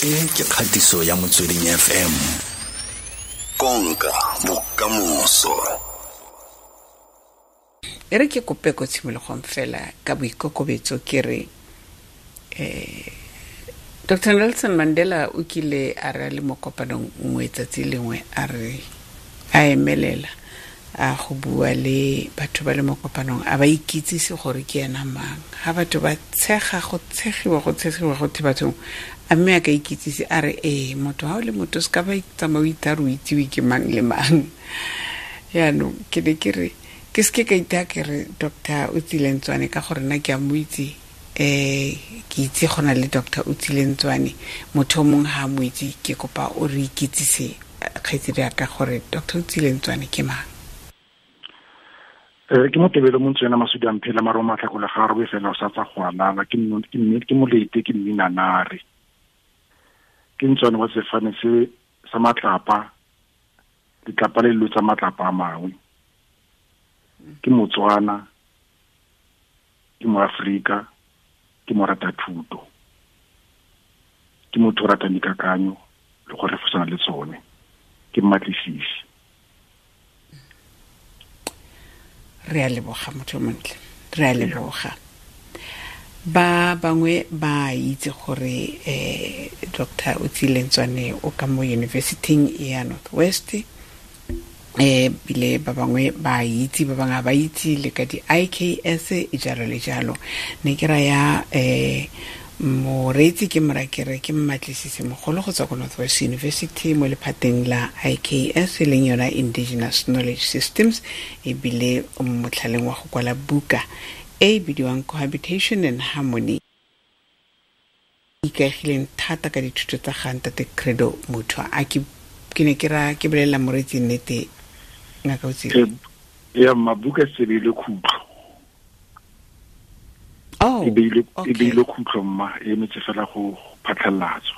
E ke kgatiso ya Motsweding FM. Konka bokamoso. E re ke kope ko tshimologong fela ka boikokobetso ke re Dr. Nelson Mandela o kile a re a le mo kopanong nngwe tsatsi lengwe a re a emelela a go bua le batho ba le mo kopanong a ba ikitsise gore ke ena mang. Ha batho ba tshega go tshegiwa go tshegiwa go the bathong a mme a ka ikitsise a re ee motho ha o le motho se ka ba tsamaya o itha re o itsiwe ke mang le mang. Yaanong ke ne ke re ke seke ka itha ke re Doctor Otsile Ntsoane ka gore nna ke a mo itse, ke itse go na le Doctor Otsile Ntsoane, motho o mongwe ha a mo itse, ke kopa o re ikitsise kgaitsedi ya ka gore Doctor Otsile Ntsoane ke mang. Ke motebelo mo ntswena masudi a mphela maro matlhakole ga robe fela o sa tsa go alala, ke ke molete, ke mminanare, ke ntswane wa sefane se sa matlapa, letlapa le lo tsa matlapa a mangwe, ke Motswana, ke Moaforika, ke morata thuto, ke motho o ratang dikakanyo le go refosana le tsone, ke mmatlisisi. Re a leboga motho montle, re a leboga. Ba bangwe ba itse gore Doctor Otsile Ntsoane o ka mo university ya North West, bile ba bangwe ba itse, ba bangwe ba itse le ka di IKS e jalo le jalo. Ne ke raya moreetsi ke morakere ke mmatlisisi mogolo go tswa ko North West University mo lephateng la IKS e leng yona Indigenous Knowledge Systems, ebile o mo motlhaleng wa go kwala buka e e bidiwang Cohabitation and Harmony, ikaegileng thata ka dithuto tsa ga ntate Credo Mutwa. A ke ne ke ra ke bolelela moreetsi nnete, ngaka Otsile? Ya mabuka se beile khutlo. Oh, E beile, e okay. beile khutlo mma, e emetse fela go phatlhalatswa.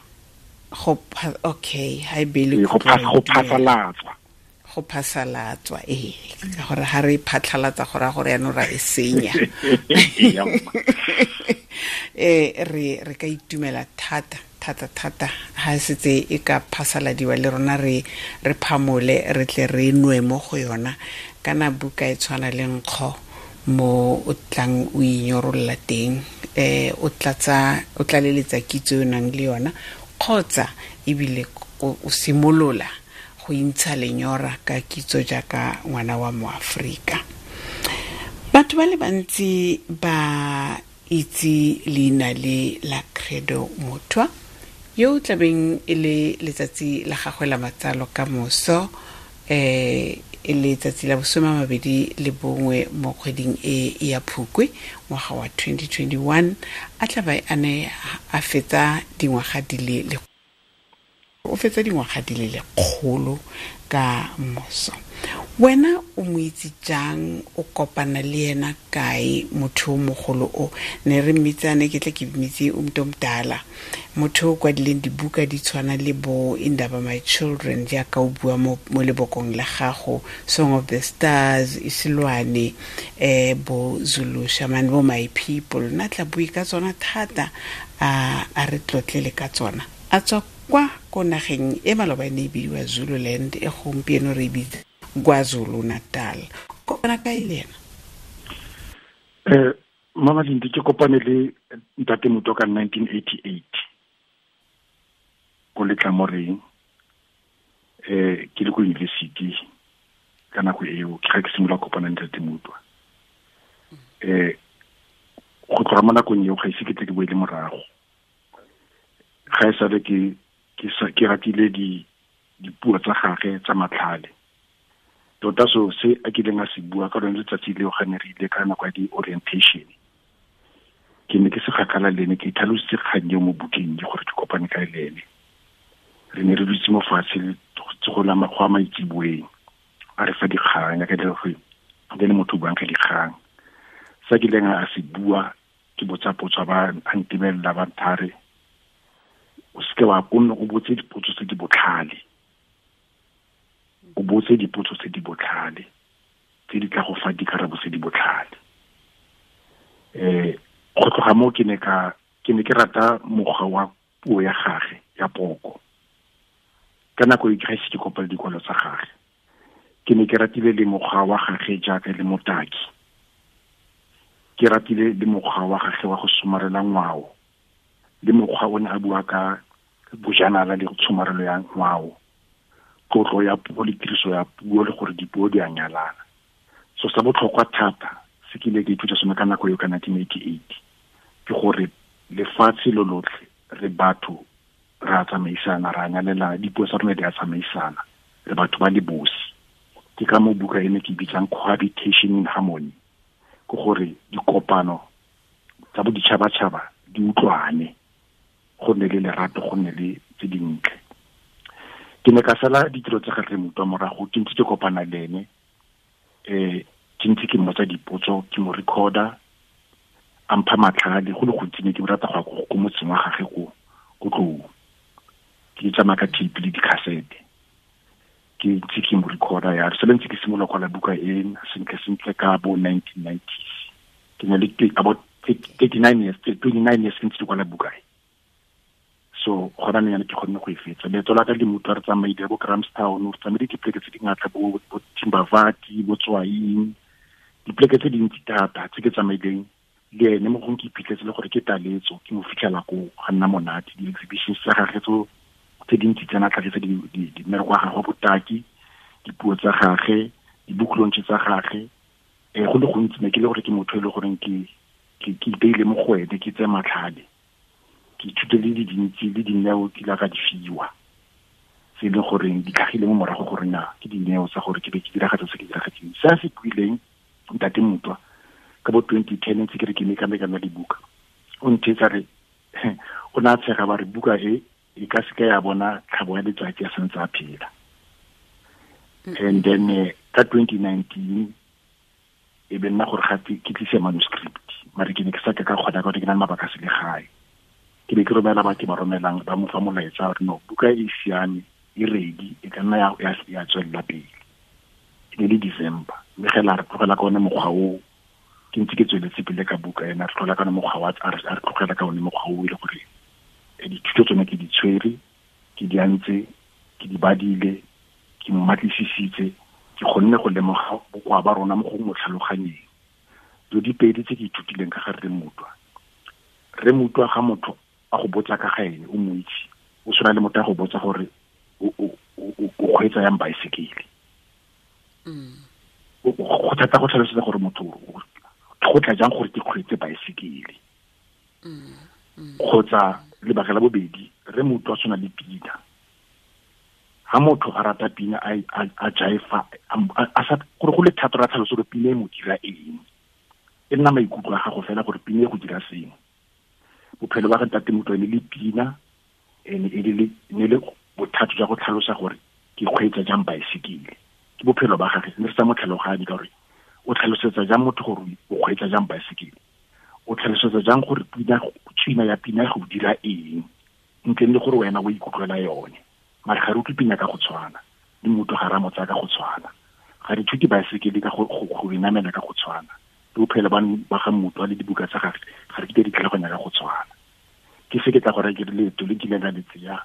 Go okay, ha e beile Ee, go khutlo, go re itumela. phasalatswa. Go phasalatswa, ee, ka gore ha re phatlhalatsa go raya gore yaanong ra e senya. Re ka itumela thata, thata, thata ha setse e ka phasaladiwa le rona re phamole, re tle re nwe mo go yona. Kana buka e tshwana le nkgo mo o tlang o inyorolola teng, o tlatsa, o tlaleletsa kitso e o nang le yona, kgotsa ebile o simolola go intsha lenyora ka kitso jaaka ngwana wa Moaforika. Batho ba le bantsi ba itse leina le la Credo Mutwa, yo o tlabeng e le letsatsi la gagwe la matsalo ka moso, e le letsatsi la bosome a mabedi le bongwe mo kgweding e ya Phukwi ngwaga wa 2021, a tla ba a ne a fetsa dingwaga di le le, o fetsa dingwaga di le lekgolo ka moso. Wena o mo itse jang, o kopana le ena kae motho o mogolo o? Ne re mmitsane, ke tle ke mmitse o motho o motala, motho o kwadileng dibuka di tshwana le bo Indaba My Children, jaaka o bua mo lebokong la gago, Song of the Stars, Isilwane, bo Zulu Shaman, bo My People. Nna tla bue ka tsona thata, a re tlotlele ka tsona. A tswa kwa ko nageng e maloba e ne e bidiwa Zululand, e gompieno re e bitsa KwaZulu Natal. Kopana kae le ena? Mama Lindi, ke kopane le Ntate Mutwa ka 1988 ko Letlamoreng, ke le ko university ka nako eo, ke ga ke simolola kopana le Ntate Mutwa. Go tloga mo nakong eo ga ise ke tle ke boele morago. Ga e sale ke ratile dipuo tsa gagwe tsa matlhale. Tota so se a kileng a se bua ka lone letsatsi leo ga ne re ile ka nako ya di-orientation, ke ne ke se kgakala le ene, ke itlhalositse kgang eo mo bukeng ke gore ke kopane kae le ene. Re ne re dutse mo fatshe go la go a maitseboeng, a re fa dikgang, ya ka le gore le motho o buang ka dikgang. Sa kileng a se bua, ke botsa potso, ba a ntebelela ba nthare, o seke wa ko nne o botse dipotso tse di botlhale. O botse dipotso tse di botlhale, tse di tla go fa dikarabo tse di botlhale. Go tloga moo ke ne ke rata mokgwa wa puo ya gagwe, ya poko. Ka nako e ke ga ise ke kopale dikwalo tsa gagwe. Ke ne ke ratile le mokgwa wa gagwe jaaka le motaki. Ke ratile le mokgwa wa gagwe wa go somarela ngwao. Le mokgwa o ne a bua ka bojanala le tshomarelo ya ngwao. Tlotlo ya puo le tiriso ya puo le gore dipuo di a nyalana. So sa botlhokwa thata se ke ile ke ithuta sone ka nako eo ka 1988 ke gore lefatshe lo lotlhe re batho re a tsamaisana, re a nyalelana, dipuo tsa rona di a tsamaisana, re batho ba le bosi. Ke ka mo buka ene ke bitsang cohabitation in harmony, ke gore dikopano tsa boditšhabatšhaba di utlwane, go nne le lerato, go nne le tse dintle. Ke ne ka sala ditiro tsa gagwe Mutwa morago, ke ntse ke kopana le ene, ke ntse ke mmotsa dipotso, ke mo recorder, a mpha matlhale go le gontsi. Ne ke rata go ya ko motseng wa gagwe ko Tlou, ke tsamaya ka tape le dikhasete, ke ntse ke mo recorder ya se ntse ke simolola kwala buka e sentle sentle ka bo 1990s. Ke ne le about 39 years, 29 years ke ntse ke kwala buka e. So gona ne ke kgonne go e fetsa. Leeto la ka le Mutwa re tsamaile bo Grahamstown, re tsamaile dipoleke tse dingata, bo Timbavati, bo Tswaing, dipoleke tse dintsi thata tse ke tsamaileng le ene. Mo gongwe ke iphitlhetse le gore ke taletso, ke mo fitlhela ko ga nna monate. Di-exhibitions tsa gagwe tse dintsi tsena tlhagisa mmereko wa gagwe wa botaki, dipuo tsa gagwe, di-book launch tsa gagwe. Go le gontsi ne ke le gore ke motho e le goreng ke ipeile mo go ene, ke tseye matlhale, ke ithute le di dintsi le dineo ke la ka di fiwa, tse e leng goreng di tlhagile mo morago gore na ke dineo tsa gore ke be ke diragatsa se ke diragetseng. Se a se buileng ntate Mutwa ka bo 2010 ntse ke re ke meka-mekana dibuka, o ntheetsa re o ne a tshega ba re buka e e ka seka ya bona tlhabo ya letsatsi a santse a phela. And then ka 2019 e be nna gore gape ke tlise manuscript, mare ke ne ke sa ka ka kgona ka gore ke na le mabaka a selegae. Ke be ke romela batho ba romelang ba mo fa molaetsa gore no, buka e siame, e ready, e ka nna ya tswelela pele. E ne le December, mme ge la re tlogela ka one mokgwa o, ke ntse ke tsweletse pele ka buka ena, re tlogela ka one mokgwa wa, a re tlogela ka one mokgwa o e le gore dithuto tsone ke di tshwere, ke di antse, ke di badile, ke mmatlisisitse, ke kgonne go lemoga bokoa ba rona mo go mo tlhaloganyeng. Dilo di pedi tse ke ithutileng ka ga Rre Mutwa. Rre Mutwa ga motho a go botsa ka ga ene, o mo itse, o tshwana le motho a go botsa gore o kgweetsa yang baesekele. Go thata go tlhalosetsa gore motho go tla jang gore ke kgweetse baesekele. Kgotsa lebaka la bobedi, Rre Mutwa o tshwana le pina. Ha motho a rata pina, a jaifa, a sa gore go le thata ra tlhalosa gore pina e mo dira eng. E nna maikutlo a gago fela gore pina e go dira sengwe. Bophelo ba ga ntate Mutwa e ne le pina, e ne e le bothata jwa go tlhalosa gore ke kgweetsa jang baesekele. Ke bophelo ba gagwe, ne re sa mo tlhaloganye ka gore o tlhalosetsa jang motho gore o kgweetsa jang baesekele, o tlhalosetsa jang gore pina, tswina ya pina go dira eng, ntle le gore wena o ikutlwela yone. Mare ga re utlwe pina ka go tshwana, le motho ga re a mo tsaya ka go tshwana, ga re ithute baesekele ka go e namela ka go tshwana, le bophelo ba ga Mutwa le dibuka tsa gagwe ga re kitla di tlhaloganya ka go tshwana. Ke se ke tla gore ke re leeto le nkileng ka le tseya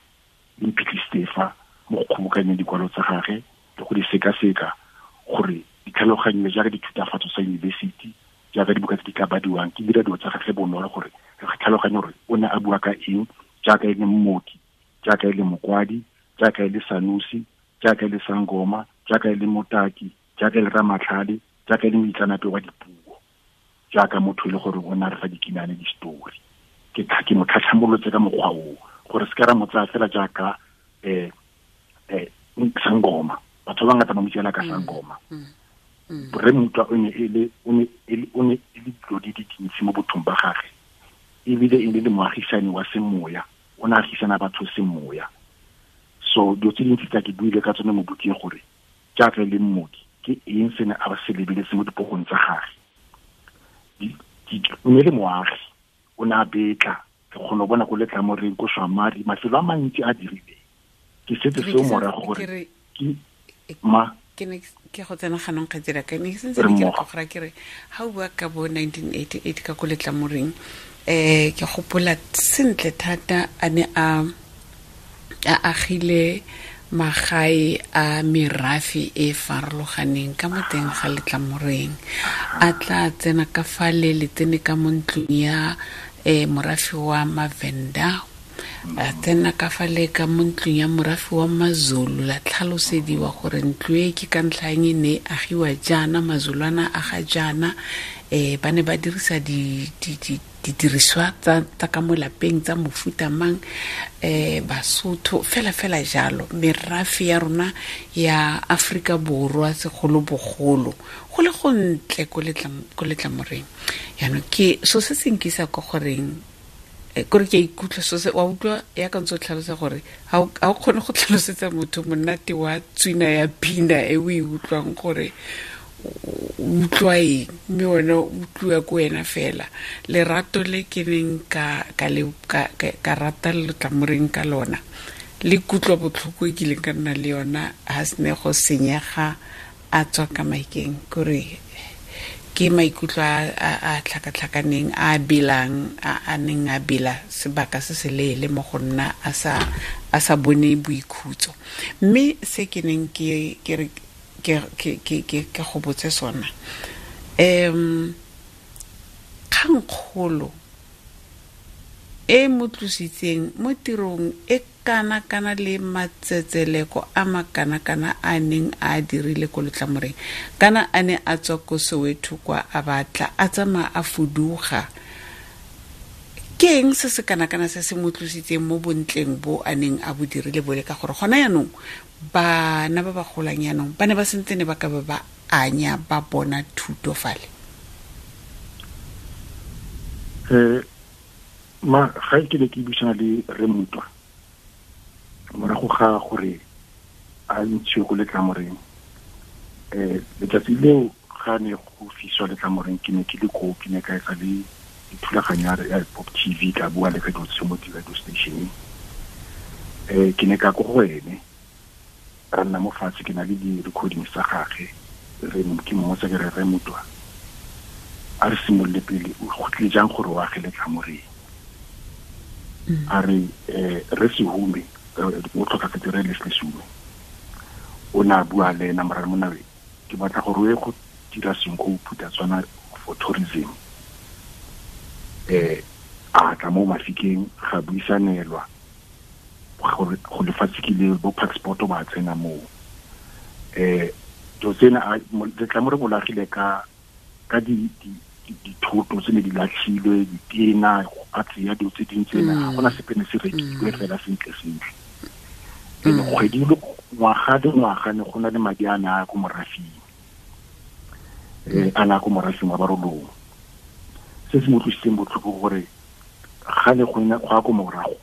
le mphitlhisitse fa mo go kgobokanyeng dikwalo tsa gagwe le go di sekaseka gore di tlhaloganyiwe jaaka dithutafatso tsa yunibesithi, jaaka dibuka tse di tla badiwang. Ke dira dilo tsa gagwe bonolo gore re tlhaloganye gore o ne a bua ka eng, jaaka e le mmoki, jaaka e le mokwadi, jaaka e le sanusi, jaaka e le sangoma, jaaka e le motaki, jaaka e le ramatlhale, jaaka e le moitseanape wa dipuo, jaaka motho e le gore o ne a re fa dikinane di-story. Ke mo tlhatlhamolotse ka mokgwa oo gore se ka ra mo tsaya fela jaaka sangoma. Batho ba bangata ba mo tsela ka sangoma. Rre Mutwa o ne e le dilo di dintsi mo bothong ba gagwe, ebile e le moagisani wa semoya, o ne a agisana batho semoya. So dilo tse dintsi tsa ke buile ka tsone mo bukeng gore jaaka e le mmoki ke eng se ne a se lebeletse mo dipokong tsa gagwe. O ne le moagi, o ne a betla, ke kgona go bona ko Letlamoreng, ko Shwamari, mafelo a mantsi a dirileng. Ke setse seo morago gore ke ma ke ne ke go tsena ganong kgaitsedi ka ne ke sentse ke re go ra ke re ha o bua ka bo 1988 ka ko Letlamoreng, ke gopola sentle thata a ne a A agile magae a merafe e farologaneng ka mo teng ga Letlamoreng. A tla tsena ka fa le le tsene ka mo ntlong ya morafe wa Mavenda, a tsena ka fa le ka mo ntlong ya morafe wa Mazulu, la tlhalosediwa gore ntlo e ke ka ntlha eng e ne e agiwa jaana, Mazulwana a ga jaana, ba ne ba dirisa didiriswa tsa ka mo lapeng tsa mofuta mang, Basotho fela fela jalo. Merafe ya rona ya Afrika Borwa segolobogolo go le gontle ko Letlamoreng. Yaanong ke so se se nkisa ko goreng, kore ke a ikutlwa so se wa utlwa ya ka ntse o tlhalosa gore ga o kgone go tlhalosetsa motho monate wa tswina ya pina e o e utlwang gore o utlwa eng, mme wena o utlwiwa ko wena fela. Lerato le ke neng ka rata Letlamoreng ka lona, le kutlwa botlhoko e kileng ka nna le yona ha se ne go senyega a tswa ka maikeng, kore ke maikutlo a tlhakatlhakaneng a belang a neng a bela sebaka se se leele mo go nna a sa bone boikhutso. Mme se ke neng ke ke go botse sona, kgangkgolo e mo tlositseng mo tirong e kana kana le matsetseleko a makana-kana a neng a dirile ko Letlamoreng, kana a ne a tswa ko Soweto kwa a batla a tsamaya a fuduga, ke eng se se kana-kana se se mo tlositseng mo bontleng bo a neng a bo dirile bole? Ka gore gona yaanong bana ba ba golang yaanong ba ne ba sentse ne ba ka ba ba anya ba bona thuto fale. Ma ga ke ne ke buisana le Rre Mutwa morago ga gore a ntshiwe ko Letlamoreng, letsatsi leo ga ne go fiswa Letlamoreng ke ne ke le koo, ke ne ka etsa le dithulaganyo ya Pop TV, ka bua le radio mo radio station. Ke ne ka ko go ene, ra nna mo fatshe, ke na le di-recordings tsa gagwe, re ke mmotsa ke re, Rre Mutwa, a re simolole pele, o go tlile jang gore o age Letlamoreng? A re re Sehume, o tlhokafetse re Leslie Sehume, o ne a bua le ena morare monna, ke batla gore o ye go dira sengwe go phutha tswana for tourism. A tla mo Mafikeng, ga buisanelwa gore go lefatshe ke le bo passport ba tsena moo. Dilo tsena Letlamore bolagile ka dithoto tse ne di latlhilwe, ditena, go ka tseya dilo tse dintsi tsena, ga gona sepe ne se rekilwe fela sentle sentle. Ene kgwedi le ngwaga le ngwaga ne go na le madi a ne a ko morafing, a ne a ko morafing wa Barolong. Se se mo utlwisitseng botlhoko gore ga ne go ya ko morago,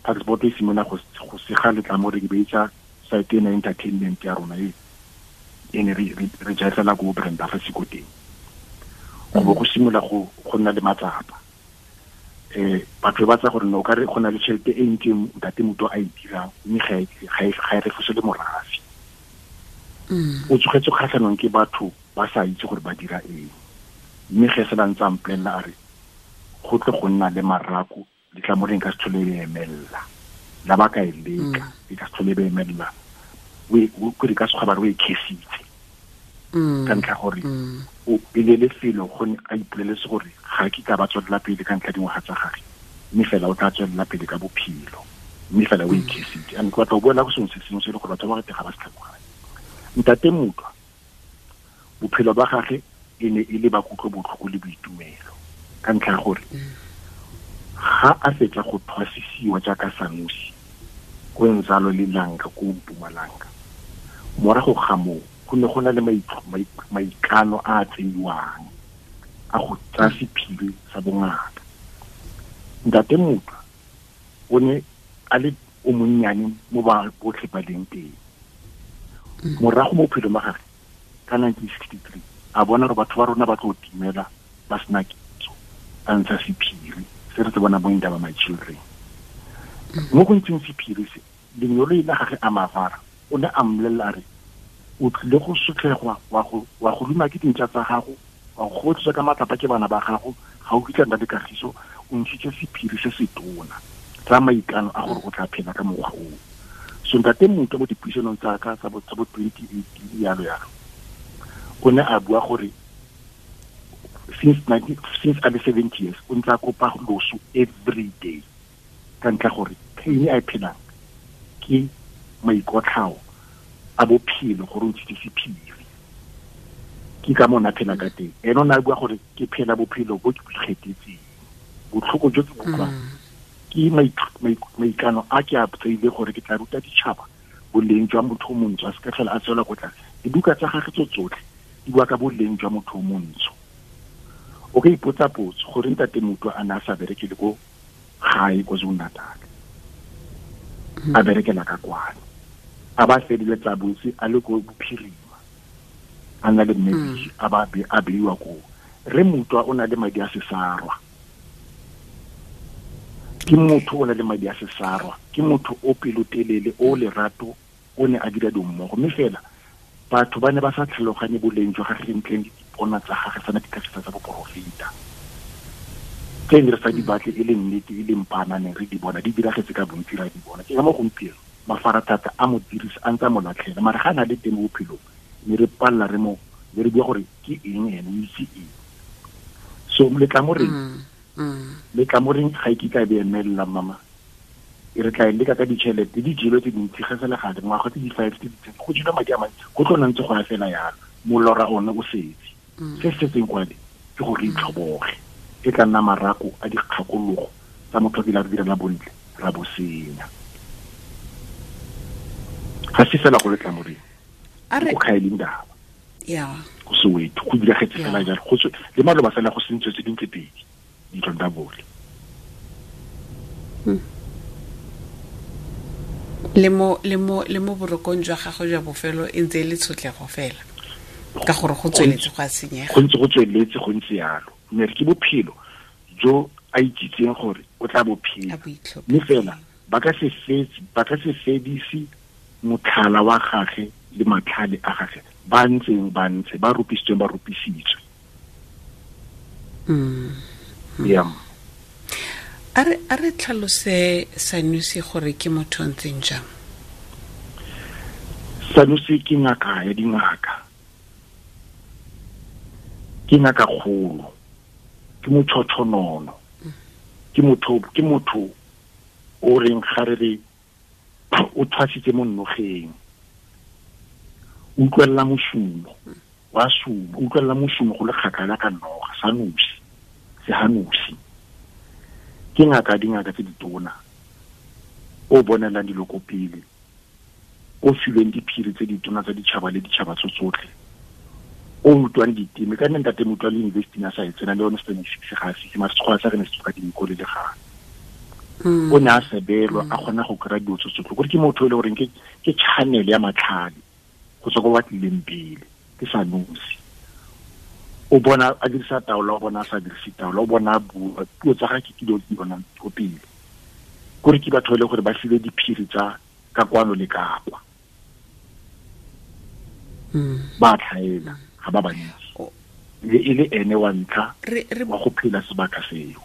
passport e simolola go sega Letlamoreng, be etsa site ena entertainment ya rona e ne re jaefela ko Brenda fa siko teng. Go bo go simolola go nna le matsapa. Batho ba tsa gore no ka re go na le tšhelete e ntsi ntate Mutwa a e dirang, mme ga e refose le morafe. O tsogetse kgatlhanong ke batho ba sa itse gore ba dira eng. Mme ge se ba ntse a mpolelela a re go tle go nna le marako, Letlamoreng ka se tlhole e emella, la ba ka e leka, e ka se tlhole e emella, o re ka sekgwa ba re o e khesitse. Ka ntlha gore o e le lefelo go ne a ipoleletse gore ga ke ka ba tswelela pele ka ntlha dingwaga tsa gagwe, mme fela o tla tswelela pele ka bophelo, mme fela o e khesitse. And ke batla go boela go sengwe se sengwe se e le gore batho ba bangata ga ba se tlhaloganye. Ntate Mutwa, bophelo ba gagwe e ne e le ba kutlobotlhoko le boitumelo, ka ntlha ya gore ga a fetsa go thwasisiwa jaaka Sanusi ko Nzalo le Langa ko Mpumalanga, morago ga moo go ne go na le maikano a a tseiwang a go tsaya sephiri sa bongaka. Ntate Mutwa o ne a le o monnyane mo ba botlhe ba leng teng. Morago mo bophelong ba gagwe ka 1963 a bona gore batho ba rona ba tlo timela ba sena kitso, a ntsha sephiri se re se bona mo Indaba My Children. Mo go ntseng sephiri se, lenyolo la gagwe a Mavara o ne a mmolelela a re o tlile go sotlhegwa, wa go luma ke dintša tsa gago, wa go kgobotletswa ka matlapa ke bana ba gago, ga o kitla nna le kagiso, o ntshitse sephiri se se tona tsa maikano a gore o tla phela ka mokgwa oo. So ntate Mutwa mo dipuisanong tsa ka tsa bo 2018 yalo yalo, o ne a bua gore since a le 70 years o ntse a kopa loso every day, ka ntlha gore pain a e phelang ke maikotlhao a bophelo gore o ntshitse sephiri. Ke ka mo na phela ka teng. Ene o ne a bua gore ke phela bophelo bo ke bo ikgethetseng, botlhoko jo ke bo utlwang ke maikano a ke a tseile gore ke tla ruta ditšhaba boleng jwa motho o montsho, a se ka tlhola a tswela ko tlase. Dibuka tsa gagwe tso tsotlhe di bua ka boleng jwa motho o montsho. O ka ipotsa potso gore ntate Mutwa a ne a sa berekele ko gae KwaZulu-Natal, a berekela ka kwano, a ba feleletsa botse a le ko bophirima, a na le mmedi, a ba a beiwa ko. Re Mutwa o na le madi a sesarwa, ke motho o na le madi a sesarwa, ke motho o pelotelele, o lerato, o ne a dira dimmogo. Mme fela batho ba ne ba sa tlhaloganye boleng jwa gagwe ntleng le dipona tsa gagwe tsana ditlhagisa tsa boporofeta tse ne re sa di batle e le nnete, e le mpanane, re di bona di diragetse ka bontsi, ra di bona. Ke ka mo gompieno mafaratlhatlha a mo dirisa a ntse a mo latlhela, mara ga a na le teng mo bophelong mme re palela re mo le re bua gore ke eng ene, o itse eng. So letlamoreng letlamoreng ga e kitla e be emelela mama, e re tla e leka ka ditšhelete di jelwe tse dintsi ga sele gale ngwaga tse di 5 tse di 10 go jelwe madi a mantsi, go tlo ntse go ya fela yalo, molora one o setse. Se se setseng kwale ke gore re itlhoboge, e tla nna marako a dikgakologo tsa motho a kile a re direla bontle ra bo senya. Ga se fela go letlamoreng, go kgaeleng daba go Soweto go diragetse fela jalo, go le maloba fela go sentswe tse dintse pedi ditlong tsa bole. Le mo borokong jwa gagwe jwa bofelo e ntse e le tshotlego fela, ka gore go tsweletse go a senyega, go ntse go tsweletse go ntse yalo. Mme ke bophelo jo a itsitseng gore o tla bophela, mme fela ba ka se fedise motlhala wa gagwe le matlhale a gagwe ba ntseng ba ntse ba rupisitsweng ba rupisitswe. A re tlhalose Sanusi gore ke motho o ntseng jang. Sanusi ke ngaka ya dingaka, ke ngaka kgolo, ke motshothonono, ke motho o reng ga re re o thwasitse mo nnogeng, utlwella mosumo wa sumo, utlwella mosumo go le kgakala ka noga. Sanusi Sehanusi ke ngaka dingaka tse ditona, o bonelang dilo ko pele, o filweng diphiri tse ditona tsa ditšhaba le ditšhaba tso tsotlhe, o utlwang diteme. Ka nne ntate Mutwa le university a sa e tsena le yone 76 ga a fitlhe, mare sekgowa sa re ne se tsoka dinko le legano. O ne a sebelwa a kgona go kry-a dilo tso tsotlhe, kore ke motho e le goreng ke channel ya matlhale go tswa ko ba tlileng pele. Ke Sanusi, o bona a dirisa taolo, o bona a sa dirise taolo, o bona a bua puo tsa gagwe ke dilo tse di bonang ko pele. Kore ke batho e le gore ba filwe diphiri tsa ka kwano le ka kwa, ba tlhaela ga ba bantsi, le e le ene wa ntlha wa go phela sebaka seo.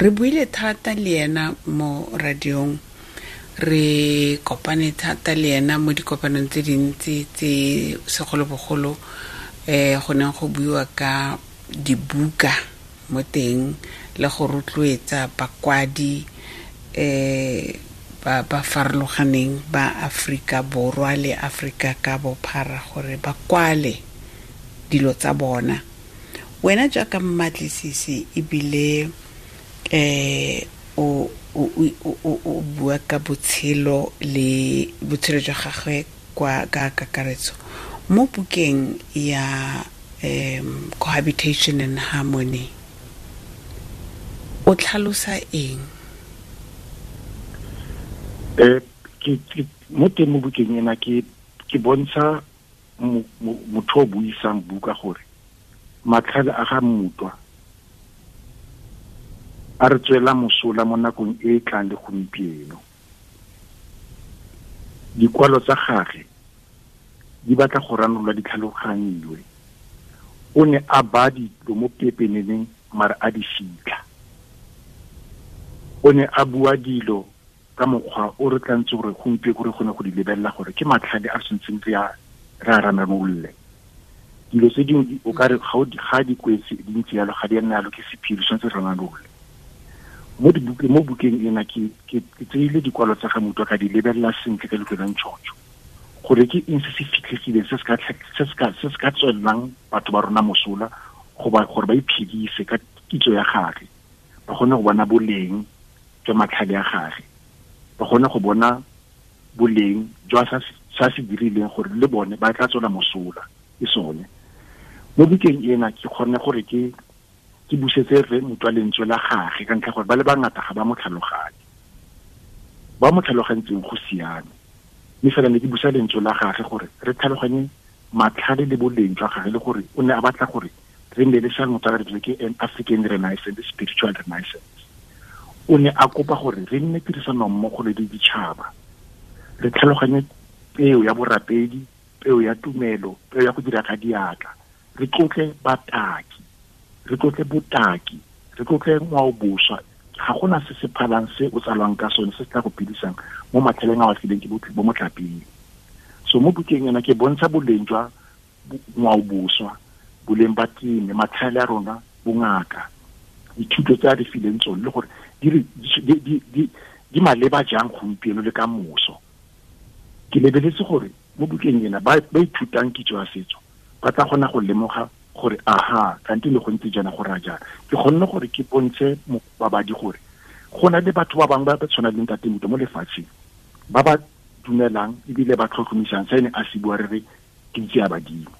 Re buile thata le ena mo radiong, re kopane thata le ena mo dikopanong tse dintsi tse segolobogolo go neng go buiwa ka dibuka mo teng le go rotloetsa bakwadi ba ba farologaneng ba Afrika Borwa le Afrika ka bophara gore ba kwale dilo tsa bona. Wena jaaka mmatlisisi ebile o bua ka botshelo le botshelo jwa gagwe kwa ka kakaretso mo bukeng ya Cohabitation and Harmony, o tlhalosa eng? Ke mo teng mo bukeng ena ke bontsha motho o buisang buka gore matlhale a ga Mutwa a re tswela mosola mo nakong e e tlang le gompieno. Dikwalo tsa gagwe di batla go ranolwa di tlhaloganyiwe. O ne a ba dilo mo pepeneneng mare a di fitlha. O ne a bua dilo ka mokgwa o re tlantse gore gompieno re kgone go di lebelela gore ke matlhale a re tshwanetseng re a ranamolle. Dilo tse dingwe o ka re ga di kwetse di ntse yalo, ga di a nna yalo, ke sephiri, tshwanetse re ranamolle. Mo bukeng ena ke tseile dikwalo tsa ga Mutwa ka di lebelela sentle ka leitlho la ntšhotšho gore ke eng se se fitlhegileng se se ka tswelelang batho ba rona mosola gore ba iphedise ka kitso ya gagwe, ba kgone go bona boleng jwa matlhale a gagwe, ba kgone go bona boleng jwa sa se dirileng gore le bone ba tla tswela mosola ke sone. Mo bukeng ena ke kgone gore ke busetse re Mutwa lentswe la gagwe ka ntlha gore ba le bangata ga ba mo tlhaloganye, ba mo tlhalogantseng go siame, mme fela ne ke busa lentswe la gagwe gore re tlhaloganye matlhale le boleng jwa gagwe, le gore o ne a batla gore re nne le sa motho a re ke an African Renaissance, spiritual renaissance. O ne a kopa gore re nne tirisano mmogo le ditšhaba, re tlhaloganye peo ya borapedi, peo ya tumelo, peo ya go dira ka diatla, re tlotle bataki, re tlotle botaki, re tlotle ngwaoboswa. Ga gona se se phalang se o tsalwang ka sone se se tla go phedisang mo matlhaleng a a fileng ke bo motlapeng. So mo bukeng ena ke bontsha boleng jwa ngwaoboswa, boleng ba teme, matlhale a rona, bongaka, dithuto tse a di fileng tsone, le gore di maleba jang gompieno le ka moso. Ke lebeletse gore mo bukeng ena ba ithutang kitso ya setso ba tla kgona go lemoga gore aha, kante le go ntse jaana go raya jaana. Ke kgonne gore ke bontshe babadi gore go na le batho ba bangwe ba ba tshwanang le Ntate Mutwa mo lefatsheng, ba ba dumelang ebile ba tlhotlhomisang se ne a se bua re re ke itse ya badimo.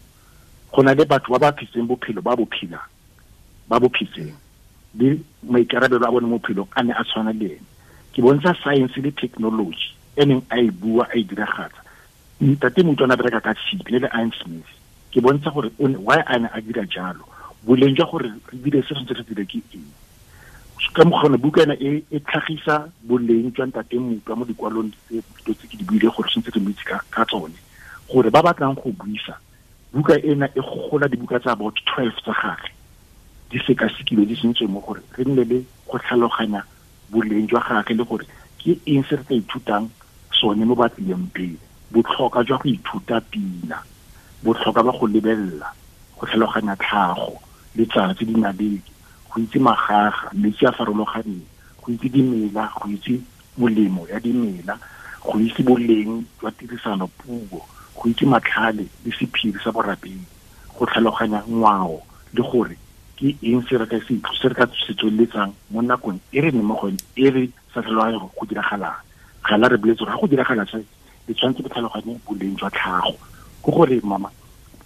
Go na le batho ba ba phetseng bophelo ba bo phelang, ba bo phetseng le maikarabelo a bone mo bophelong a ne a tshwana le ene. Ke bontsha science le technology e neng a e bua, a e diragatsa. Ntate Mutwa a bereka ka tshipi le Iron Smith. Ke bontsha gore why a ne a dira jalo, boleng jwa gore re dire se re dire ke eng. Ka mokgwa buka ena e tlhagisa boleng jwa Ntate Mutwa mo dikwalong tse tse ke di buile gore tshwanetse re mo itse ka tsone, gore ba batlang go buisa buka ena e gogola dibuka tsa about 12 tsa gagwe di sekasekilwe, di sentswe mo gore re nne le go tlhaloganya boleng jwa gagwe le gore ke eng se re tla ithutang sone mo ba tlileng pele. Botlhokwa jwa go ithuta pina, botlhokwa ba go lebelela, go tlhaloganya tlhago, letsatsi, dinaledi, go itse magaga, metsi a farologaneng, go itse dimela, go itse molemo ya dimela, go itse boleng jwa tirisano puo, go itse matlhale le sephiri sa borapedi, go tlhaloganya ngwao le gore ke eng se re ka se tsweletsang mo nakong e re neng mo go yone, e re sa tlhaloganye go diragalang. Ga la re boletse gore ga go diragala se, le tshwanetse go tlhaloganye boleng jwa tlhago. Ke gore mama,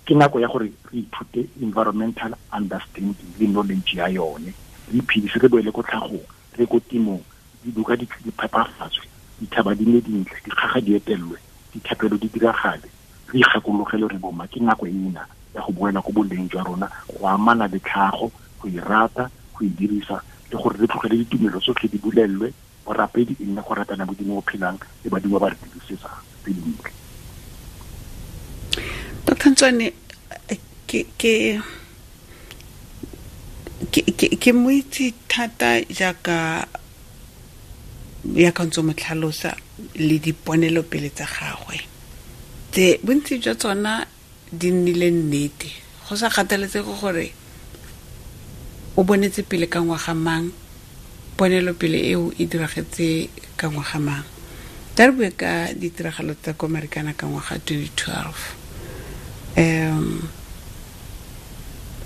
ke nako ya gore re ithute environmental understanding le knowledge ya yone, re iphedise, re boele ko tlhagong, re ko temong, dibuka di phepafatswe, dithaba di nne dintle, dikgaga di etelwe, dithapelo di diragale, re ikgakologele re boma. Ke nako ena ya go boela ko boleng jwa rona, go amana le tlhago, go e rata, go e dirisa, le gore re tlogele ditumelo tsotlhe di bulelwe, borapedi e nne go ratana Modimo o phelang le badimo ba re dirisetsang tse dintle. Dr. Ntswane, ke mo itse thata jaaka ya ka ntse mo tlhalosa le diponelopele tsa gagwe, tse bontsi jwa tsona di nnile nnete, go sa kgathaletsege gore o bonetse pele ka ngwaga mang, ponelopele eo e diragetse ka ngwaga mang. Tla re bue ka ditiragalo tsa ko Marikana ka ngwaga 2012.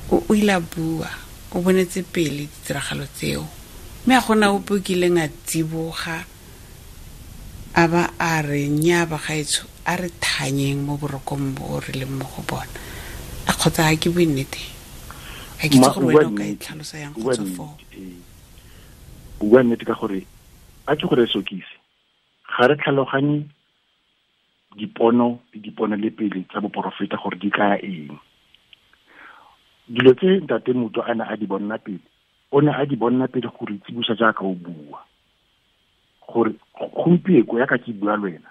O ile a bua, o bonetse pele ditiragalo tseo, mme a gona ope o kileng a tsiboga a ba a re nnyaa bagaetsho, a re thanyeng mo borokong bo re leng mo go bona. A kgotsa ga ke bue nnete? Ga ke itse gore wena o ka e tlhalosa yang go tswa foo. O bua nnete ka gore a ke gore sokise, ga re tlhaloganye dipono le dipono le pele tsa boporofeta gore di kaya eng. Dilo tse Ntate Mutwa a ne a di bonna pele, o ne a di bonna pele gore tsibusa jaaka o bua, gore gompieko ya ka ke bua le wena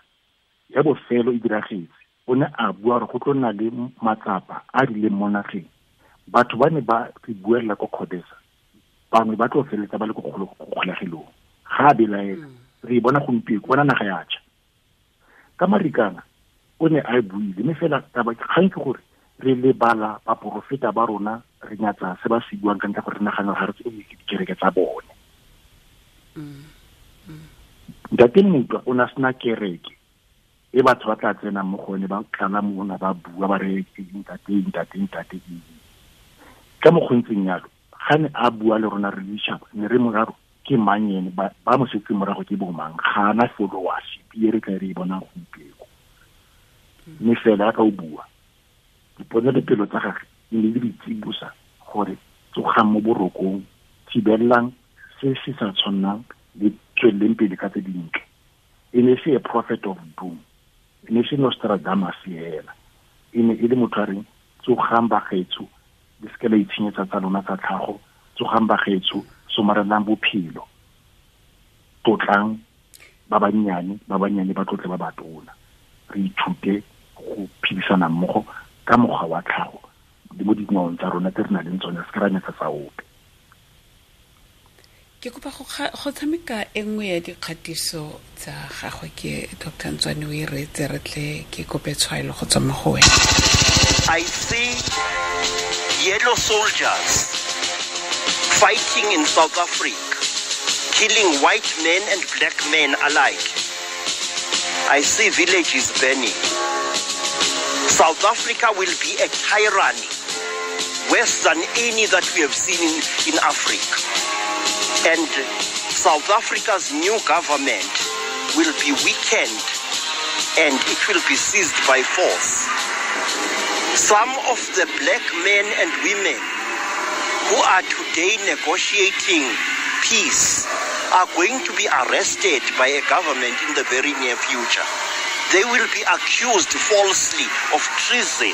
ya bofelo e diragetse. O ne a bua gore go tlo nna le matsapa a rileng mo nageng, batho ba ne ba re buelela ko Kgodesa, bangwe ba tlo feletsa ba le ko kgolegelong. Ga a belaela, Re e bona gompieno, bona naga ya tšha. Ka Marikana o ne a e buile, mme fela taba kgang ke gore re lebala baporofeta ba rona, re nyatsa se ba se buang ka ntlha gore re nagana ga re tsebe ke dikereke tsa bone. Ntate Mutwa o ne a sena kereke e batho ba tla tsenang mo go yone, ba tlala mona ba bua ba re ntate, ntate, ntate. Ka mokgontseng yalo, ga ne a bua le rona re le ditšhaba, ne re moraro ke mang ene, ba mo setse morago ke bo mang, ga ana followership e re tla re e bonang gompieno. Mme fela ka o bua, diponelopele tsa gagwe di ne di re tsibosa gore tsogang mo borokong, thibelelang se se sa tshwannang le tsweleleng pele ka tse dintle. E ne se a prophet of doom, e ne se Nostradamus fela, e ne e le motho a reng tsogang bagaetsho, le seke la itshenyetsa tsa lona tsa tlhago, tsogang bagaetsho, somarelang bophelo, tlotlang ba bannyane, ba bannyane ba tlotle ba batona. Re ithute go phedisana mmogo ka mokgwa wa tlhago le mo dingwaong tsa rona tse re nang le tsone, se ke ra nyatsa tsa ope. Ke kopa go tshameka e nngwe ya dikgatiso tsa gagwe ke Doctor Ntswane, o e reetse re tle ke kope tshwaelo go tswa mo go wena. I see yellow soldiers fighting in South Africa, killing white men and black men alike. I see villages burning. South Africa will be a tyranny worse than any that we have seen in Africa. And South Africa's new government will be weakened and it will be seized by force. Some of the black men and women who are today negotiating peace are going to be arrested by a government in the very near future. They will be accused falsely of treason,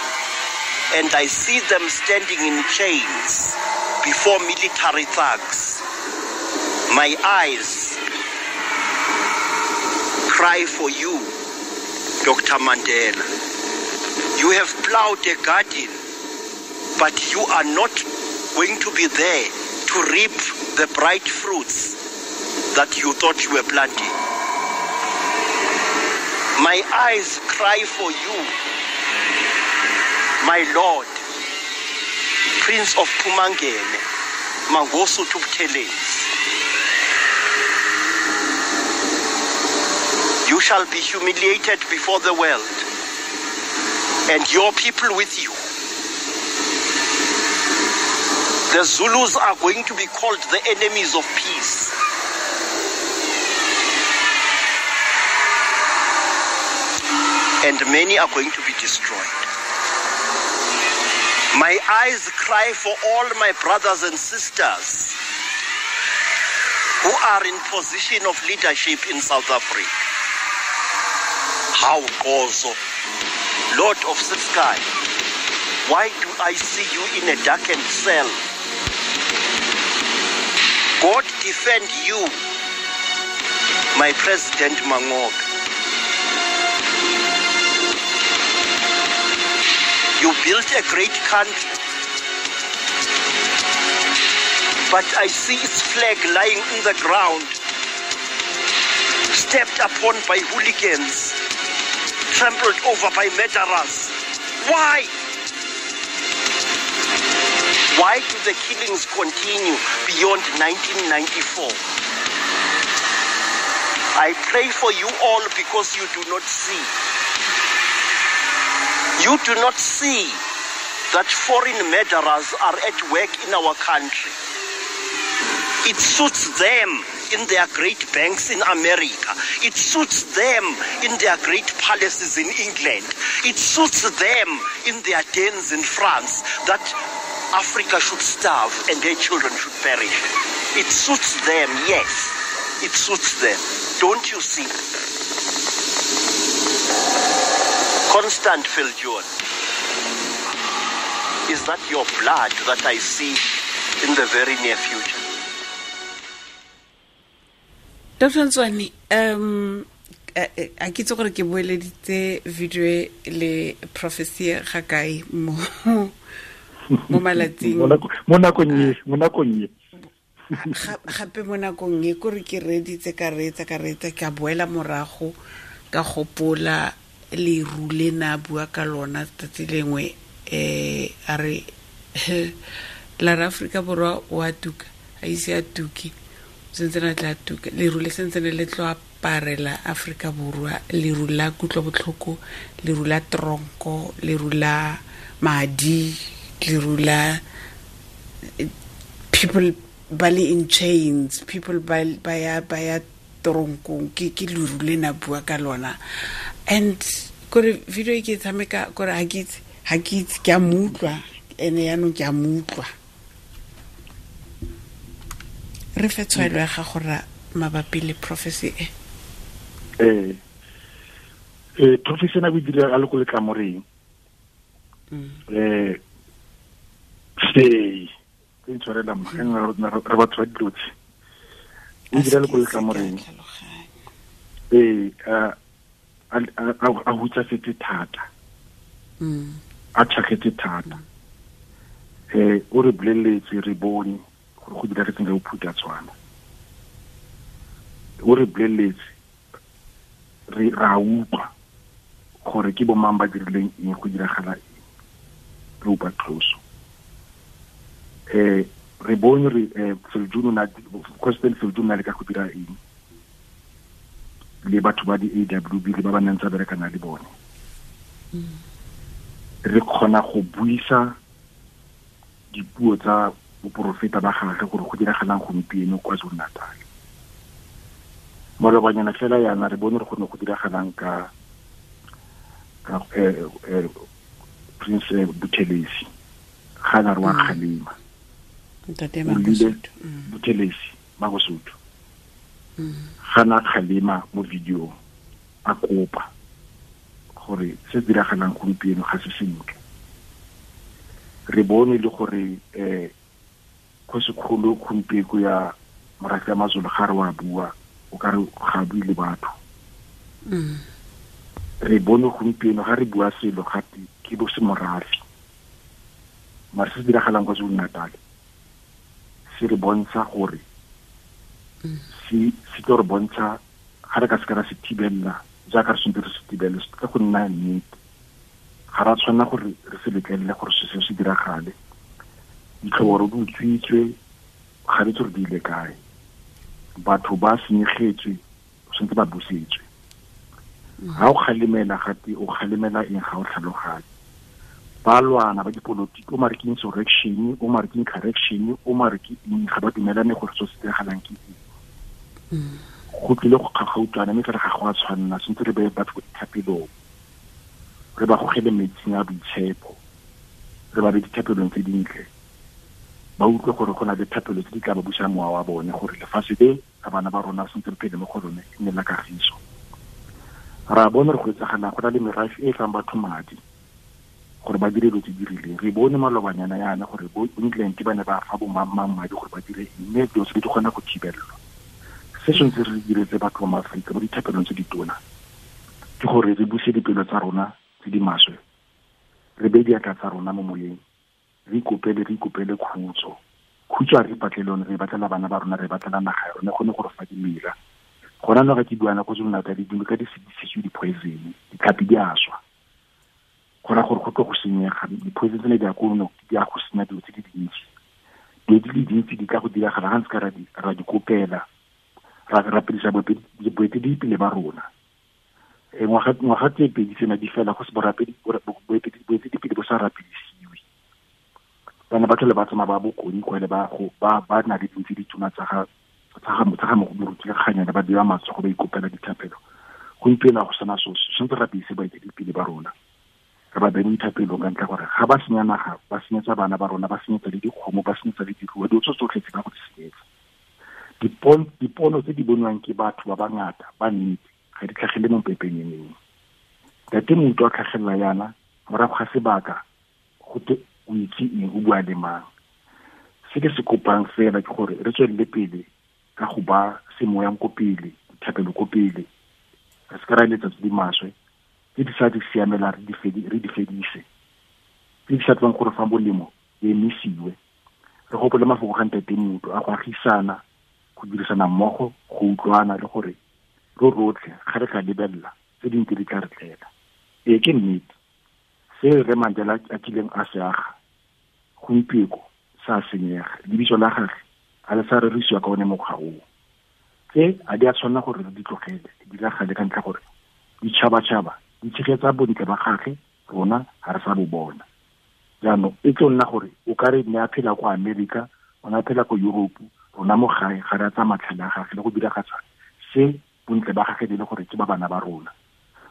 and I see them standing in chains before military thugs. My eyes cry for you, Dr. Mandela. You have plowed a garden, but you are not going to be there to reap the bright fruits that you thought you were planting. My eyes cry for you, my Lord, Prince of Pumangene, Mangosuthu Buthelezi. You shall be humiliated before the world, and your people with you. The Zulus are going to be called the enemies of peace. And many are going to be destroyed. My eyes cry for all my brothers and sisters who are in position of leadership in South Africa. How Gozo, Lord of the sky, why do I see you in a darkened cell? God defend you, my President Mangope. You built a great country, but I see its flag lying in the ground, stepped upon by hooligans, trampled over by murderers. Why? Why do the killings continue beyond 1994? I pray for you all because you do not see. You do not see that foreign murderers are at work in our country. It suits them in their great banks in America. It suits them in their great palaces in England. It suits them in their dens in France that Africa should starve and their children should perish. It suits them, yes. It suits them. Don't you see? Constant Viljoen, is that your blood that I see in the very near future? Dr. Ntswane, a ke itse gore ke boeleditse video e le prophecy ga kae mo malatsing. Mo nakong e, mo nakong e. Gape mo nakong e kore ke reeditse ka reetsa ka reetsa, ka boela morago ka gopola leru le na bua ka lona tsatsi lengwe, a re la re Aforika Borwa o a tuka, a ise a tuke, sentse na tla tuka, leru le sentse ne le tlo aparela Aforika Borwa, leru la kutlobotlhoko, leru la tronko, leru la madi, leru la people ba le in chains, people ba ya tronkong, ke leru le na bua ka lona. And kore video e ke tshameka kore ha ke itse ke a mo utlwa, ene yaanong ke a mo utlwa. Re fe tshwaelo ya gago ra mabapi le prophecy e. Prophecy ena o e dira a le ko letlamoreng. Sei ke ntshwarela mma, re batho ba dilo tse. O dira le ko letlamoreng. A hutsafetse thata. A tšhakgetse thata. O re boleletse, re bone gore go diragetseng ka bophuthatswana. O re boleletse, re ra utlwa gore ke bo mang ba dirileng eng, go diragala eng, re upa tloso. Re bone re President Viljoen na le ka go dira eng le batho ba di-AWB le ba ba neng tsa berekana le bone. Re kgona go buisa dipuo tsa boporofeta ba gagwe gore go diragalang gompieno kwa KwaZulu-Natal. Malobanyana fela yana re bone re gone go diragalang ka Prince Buthelezi, ga na re wa kgalema. Buthelezi Mangosuthu. Ga na kgalema mo video a kopa gore se diragalang gompieno ga se sentle. Re bone le gore kgosikgolo gompieno ya morafe ya Mazulu ga re wa bua, o ka re ga bue le batho. Re bone gompieno ga re bua selo gape ke bo semorafe. Mara se se diragalang kwa KwaZulu-Natal se re bontsha gore se tlo re bontsha ga re ka se ka ra se thibella jaaka re tshwanetse re se thibele, se tla go nna nnete. Ga ra tshwanela gore re se letlelele gore se se diragale. Ditlhoboro di utswitswe, ga re itse gore di ile kae. Batho ba senyegetswe, tshwanetse ba busetswe. Ga o kgalemela gape, o kgalemela eng ga o tlhaloganye. Ba lwana ba dipolotiki, o mare ke insurrection, o mare ke incorrection, o mare ke eng, ga ba dumelane gore se se diragalang ke eng. Go tlile go kgakgautlwana, mme fela ga go a tshwanela, tshwanetse re beye batho ko dithapelong, re ba gogele metsing a boitshepo, re ba be dithapelong tse dintle, ba utlwe gore go na le thapelo tse di tla ba busang mowa wa bone, gore lefatshe le la bana ba rona sentse re phele mo go lone e nne la kagiso. Ra bone re go etsagalang, go na le merafe e e fang batho madi gore ba dire dilo tse di rileng. Re bone malobanyana yana gore bo England ba ne ba fa bo mang madi gore ba dire eng, mme dilo tse di kgona go thibelelwa. Se sentse re diretse batho ba Maaforika mo dithapelong tse di tona ke gore re buse dipelo tsa rona tse di maswe, re beye diatla tsa rona mo moyeng, re ikopele khutso. Khutso a re ipatle lone, re batlela bana ba rona, re batlela naga ya rona, gone gore fa dimela. Gona no ga ke buana ko KwaZulu-Natal, dinoka di sedisitswe di-poison, ditlhapi di a swa. Go raya gore go tlo go senyega, di-poison tsene di ya ko no, di ya go senya dilo tse di dintsi. Dilo di le dintsi di tla go diragala ga ntse ka ra di kopela, ra rapedisa boeteledipele ba rona. Ngwaga tse pedi tsena di fela go se boeteledipele bo sa rapedisiwe. Bana ba tlhole ba tsamaya ba bokoni kwa le ba go ba na le dintsi dituna tsa ga moruti ka kganyana, ba bewa matsogo ba ikopela dithapelo. Gompieno ga go sena so, tshwanetse rapedise baeteledipele ba rona, re ba beye mo dithapelong ka ntlha gore ga ba senya naga, ba senyetsa bana ba rona, ba senyetsa le dikgomo, ba senyetsa le diruiwa, dilo tse tsotlhe tse ba go di senyetsa. Dipono tse di bonwang ke batho ba bangata ba nnete ga di tlhagele mo pepenyeneng. Ntate Mouto a tlhagelela yana morago ga sebaka go te o itse eng, o bua le mang. Se ke se kopang fela ke gore re tswelele pele ka go ba semoyang ko pele, dithapelo ko pele, re se ka ra eletsa tse di maswe, tse di sa di siamelang re di fedise, tse di sa tlang gore fa molemo di emisiwe. Re gopole mafoko ga Ntate Mutwa a go agisana, go dirisana mmogo, go utlwana le gore ro rotlhe ga re ka lebelela tse dintsi di tla re tlela. Ee, ke nnete se Rre Mandela a kileng a se aga gompieko sa senyega, lebitso la gagwe a le sa rerisiwa ka one mokgwa oo. Tse a di a tshwanela gore re di tlogele di diragale ka ntlha gore ditšhabatšhaba di tshegetsa bontle ba gagwe, rona ga re sa bo bona. Jaanong e tlo nna gore o ka re ne a phela kwa Amerika, o ne a phela ko Europe, rona mo gae ga re a tsaya matlhale a gagwe le go diragatsa se bontle ba gagwe le gore ke ba bana ba rona.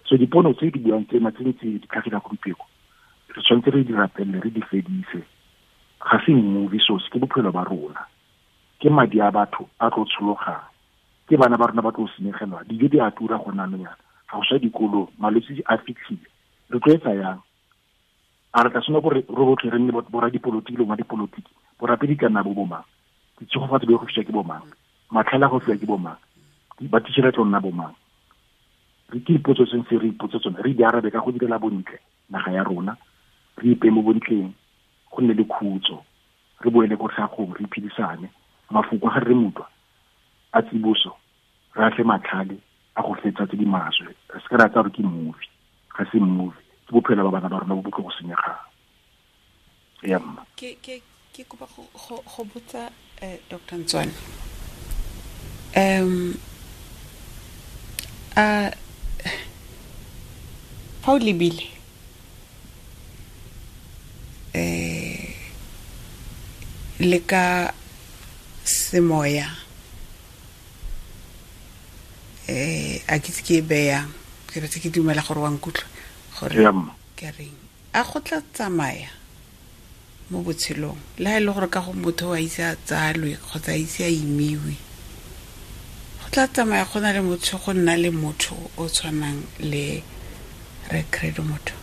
So dipono tse di buang tsena tse ntse di tlhagela gompieko, re tshwanetse re di rapelele, re di fedise. Ga se movie source, ke bophelo ba rona, ke madi a batho a tlo tshologang, ke bana ba rona ba tlo senyegelwa, dijo di a tura go nna nyana, ga go sa dikolong, malwetse a fitlhile, re tlo etsa yang? A re tla tshwanela gore re rotlhe re nne boradipolotiki le bomadipolotiki, borapedi ka nna bo bomang, ditshegofatso di go fiwa ke bomang, matlhale a go fiwa ke bomang, ba teacher tlo nna bomang? Re ke dipotso tse ntse re ipotse tsone, re di arabe ka go direla bontle naga ya rona, re ipe mo bontleng, go nne le khutso, re boele ko tlhagong, re iphedisane. Mafoko a ga Rre Mutwa a tsiboso, re atle matlhale a go fetsa tse di maswe, re se ka ra tsaya gore ke movie. Ga se movie, ke bophelo ba bana ba rona bo bo tlo go senyegang. Ya mma. Ke kopa go botsa Dr. Ntswane. A fa o lebile le ka semoya, a ke tse ke e beyang, ke retse ke dumela gore wa nkutlwa gore Ya mma. ke reng, a go tla tsamaya mo botshelong le ha e le gore ka go motho a ise a tsalwe kgotsa a ise a imiwe, go tla tsamaya go na le motho, go nna le motho o tshwanang le Rre Credo Mutwa?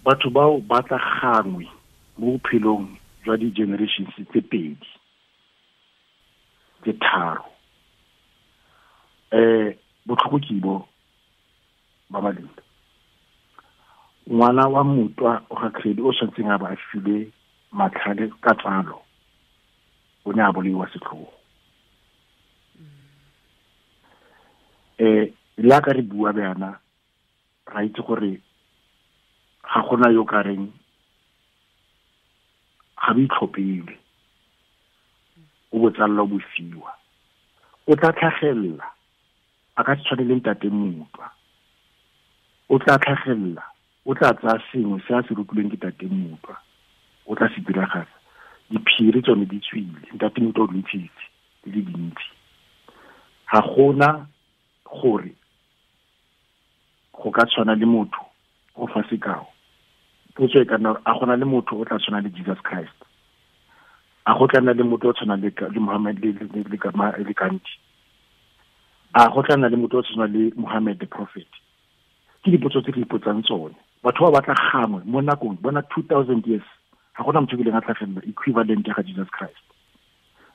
Batho bao ba tla gangwe mo bophelong jwa di-generations tse pedi, tse tharo. Botlhoko ke bo ba Malinda. Ngwana wa Mutwa o ga Credo o tshwanetseng a ba a filwe matlhale ka tsalo, o ne a bolaiwa setlhogo. Le ka re bua bjana, ra itse gore ga gona yo ka reng ga bo itlhophele, o bo tsalla o bo fiwa. O tla tlhagelela, a ka se tshwane le Ntate Mutwa. O tla tlhagelela, o tla tsaya sengwe se a se rutilweng ke Ntate Mutwa, o tla se diragatsa. Diphiri tsone di tswile, Ntate Mutwa o di ntshitse di le dintsi. Ga gona gore go ka tshwana le motho o fa sekao. Potso e ka nna, a gona le motho o tla tshwana le Jesus Christ? A go tla nna le motho o tshwana le Muhammad le Gandhi? A go tla nna le motho o tshwana le Muhammad the prophet? Ke dipotso tse re ipotsang tsone. Batho ba batla gangwe mo nakong, bona 2000 years, ga gona motho o kileng a tlhagelela equivalent ya ga Jesus Christ.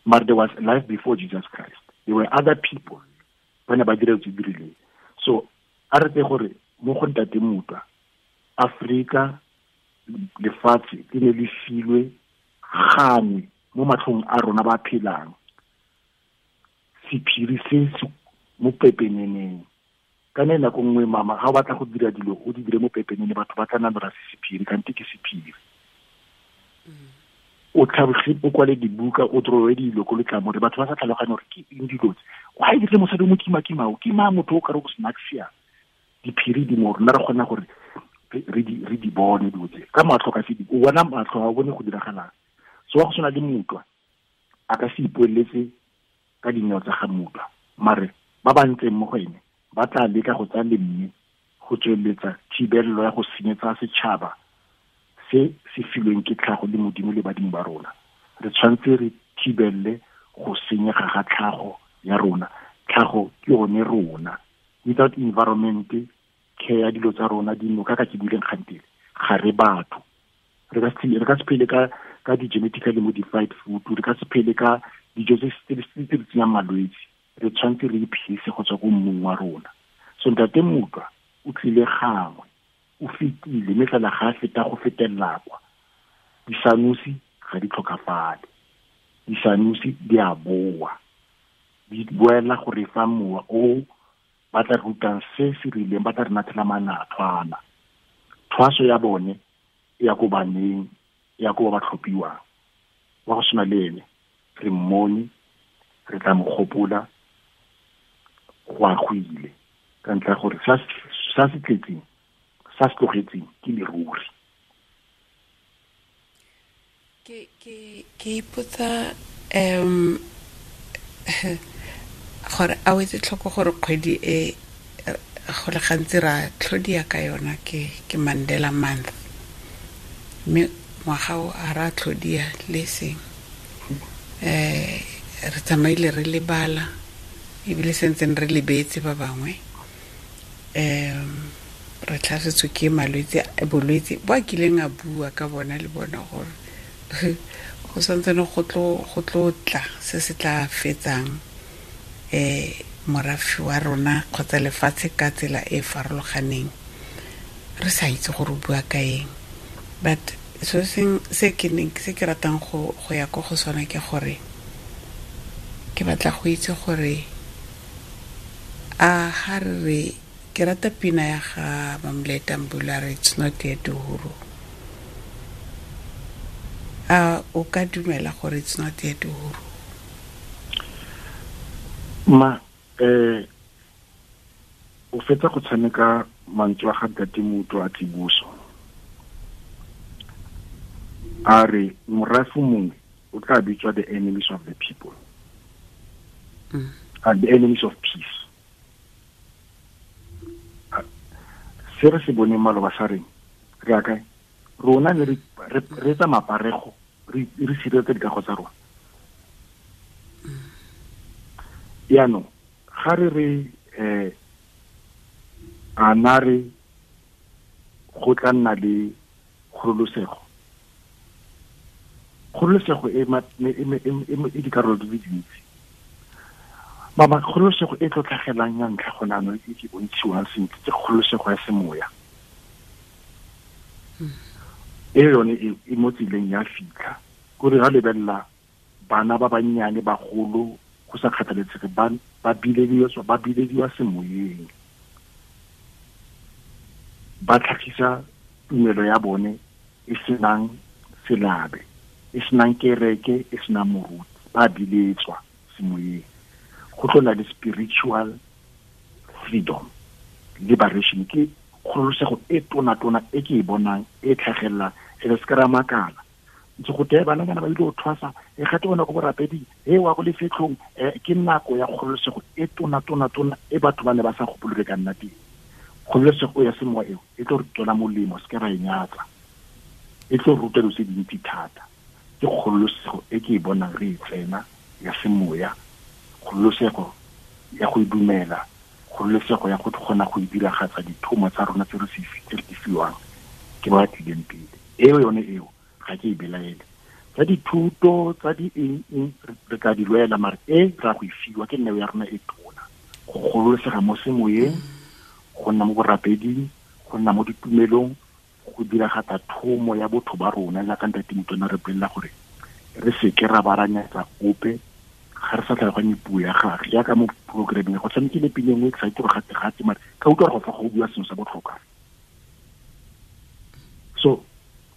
But there was life before Jesus Christ. There were other people ba ne ba dira tse di rileng. So a re tse gore mo go Ntate Mutwa, Afrika lefatshe le ne le filwe gangwe mo matlhong a rona ba phelang. Sephiri se se mo pepeneneng. Ka ne nako nngwe mama, ga o batla go dira dilo, o di dire mo pepenene, batho ba tla nna ba se sephiri, kante ke sephiri. O tlhaboge, o kwale dibuka, o drowe dilo ko letlamore, batho ba sa tlhaloganye gore ke eng dilo tse. Why dirile mosadi o mo kima-kima o? Ke mang motho o ka re o snacksia? Diphiri di mo rona, re kgona gore re di bone dilo tse. Ka matlho ka se di, o bona matlho, ga o bone go diragalang. So wa go tshwana le Mutwa, a ka se ipoeletse ka dineo tsa ga Mutwa, mare ba ba ntseng mo go ene ba tla leka go tsaya lemme go tsweletsa thibelelo ya go senyetsa setšhaba se se filweng ke tlhago le Modimo le badimo ba rona. Re tshwanetse re thibelele go senyega ga tlhago ya rona. Tlhago ke yone rona. Without environment, care ya dilo tsa rona, dinoka ka ke buileng kgantele, ga re batho. Re ka se phele ka di-genetically modified food, re ka se phele ka dijo tse di tsenyang malwetse. Re tshwanetse re iphedise go tswa ko mmung wa rona. So Ntate Mutwa o tlile gangwe, o fetile, mme fela ga a feta go fetelela kwa. Disanusi ga di tlhokafale, disanusi di a boa, di boela go re fa mowa o ba tla rutang se se rileng, ba tla re nathela manathwana. Thwaso ya bone e ya ko baneng, e ya ko ba ba tlhophiwang. Wa go tshwana le ene re mmone, re tla mo gopola go a go ile, ka ntlha ya gore sa se tletseng, sa se tlogetseng ke leruri. Ke ipotsa gore a o etse tlhoko gore kgwedi e go le gantsi ra tlhodia ka yona ke Mandela Month, mme ngwaga o a ra tlhodia le seng. Re tsamaile re lebala, ebile sentseng re lebetse ba bangwe. Re tlhasetswe ke malwetse, bolwetse bo a kileng a bua ka bona le bona gore go santsane go tlo tla se se tla fetsang morafe wa rona kgotsa lefatshe ka tsela e farologaneng, re sa itse gore o bua ka eng. But so seng se ke neng se ke ratang go ya ko go sona ke gore ke batla go itse gore a ga re ke rata pina ya ga Mamleta Mbula re it's not yet uhuru. A o ka dumela gore it's not yet uhuru? Ma o fetsa go tshameka mantswe a ga Ntate Motho a Tsiboso, a re morafe mongwe o tla bitswa the enemies of the people, and the enemies of peace. Se re se boneng maloba sa reng re ya kae? Rona ne re etsa maparego, re sireletsa dikago tsa rona. Jaanong ga re re a na re go tla nna le kgololosego, kgololosego e dikarolo di le dintsi. Mama, kgololosego e tlo tlhagelang ya ntlha gone jaanong e ke bontshiwang sentle ke kgololosego ya semoya. E yone e mo tseleng ya fitlha, kore ga lebelela bana ba bannyane bagolo go sa kgathaletsege ba bilediwa semoyeng, ba tlhagisa tumelo ya bone e senang selabe, e senang kereke, e senang moruti, ba biletswa semoyeng. Go tlo nna le spiritual freedom, liberation, ke kgololosego e tona-tona e ke e bonang e tlhagelela, e re se ka ra makala. Ntse go tee bana ba ile go thwasa, e gate bona ko borapeding, e wa go lefetlhong, ke nako ya kgololosego e tona-tona-tona e batho ba ne ba sa gopole ka nna teng. Kgololosego ya semoya eo e tlo re tswela molemo, se ke ra e nyatsa, e tlo ruta dilo tse dintsi thata. Ke kgololosego e ke e bonang re e tsena ya semoya, kgololosego ya go dumela, kgololosego ya go kgona go diragatsa dithomo tsa rona tse re di fiwang ke ba tlileng pele. Eo yone eo ga ke e belaele. Tsa dithuto tsa di eng re tla di lwela, mare e ra go e fiwa ke neo ya rona e tona, go gololosega mo semoyeng, go nna mo borapeding, go nna mo ditumelong, go diragatsa thomo ya botho ba rona jaaka Ntate Motona re bolelela gore re seke ra baranyatsa ope ga re sa tlhaloganye puo ya gagwe. Jaaka mo programmeng go tshamekile pina e nngwe ke sa itse gore gate-gate, mare ka utlwa gore go fa go bua sengwe sa botlhokwa. So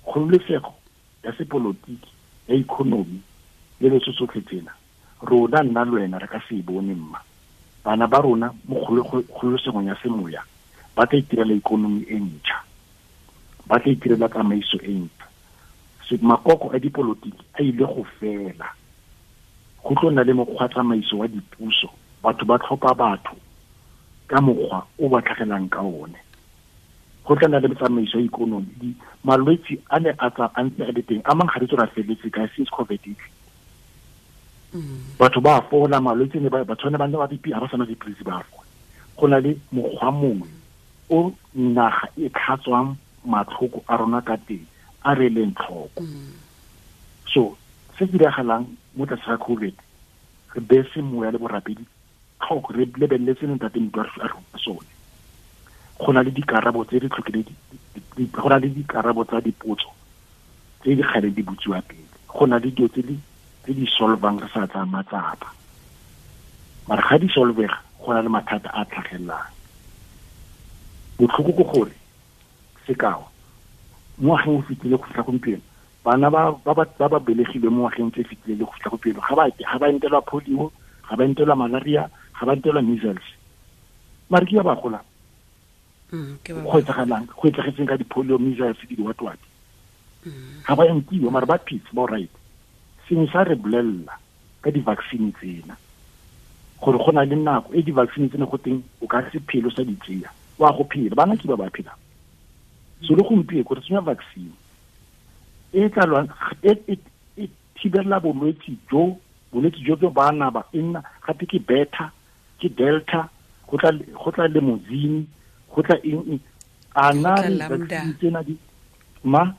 kgololosego ya sepolotiki, ya economy le le tsotlhe tsena, rona nna le wena re ka se e bone mma. Bana ba rona mo kgololosegong ya semoya ba tla itirela ikonomi e ntšha, ba tla itirela tsamaiso e ntšha. Makoko a dipolotiki a ile go fela, go tlo nna le mokgwa tsamaiso wa dipuso, batho ba tlhopha batho ka mokgwa o ba tlhagelang ka one. Go tla nna le tsamaiso ya ikonomi. Malwetse a ne a tsa a ntse a le teng, a mang ga re tswe ra feletse ka since COVID. Batho ba fola malwetse ne ba tshwane ba nna ba BP, ha ba sana dipilisi ba fola. Go na le mokgwa mongwe o naga e tlhatswang matlhoko a rona ka teng, a re leng tlhoko. So se se diragalang mo tlase ga COVID, re bese moya le borapedi tlhoko, re lebeletse Ntate Motho a re sone. Go na le dikarabo tse re tlhokile, go na le dikarabo tsa dipotso Tse di kgale di butsiwa pele. Go na le dilo tse di solvang re sa tsaya matsapa. Mara ga di solvega go na le mathata a tlhagelelang. Botlhoko ke gore sekao mo ngwageng o fetile go fitlha gompieno bana ba ba belegilwe mo ngwageng tse fetile le go fitlha gompieno ga ba entelwa polio, ga ba entelwa malaria, ga ba entelwa measles. Mara ke ba ba golang. Go etsagalang, go etsagetseng ka di-polio, measles, di what. Ga ba entiwa mara ba phetse ba right. Sengwe sa re bolelela ka di-vaccine tsena gore go na le nako e di-vaccine tsena go teng o ka se phelo sa di tseya wa go phela bana ke ba ba phelang. So le gompieno re tsenya vaccine e tla lwang e thibela bolwetse jo ba naba e nna gape ke beta ke delta go tla limousine go tla eng a na vaccine tsena di ma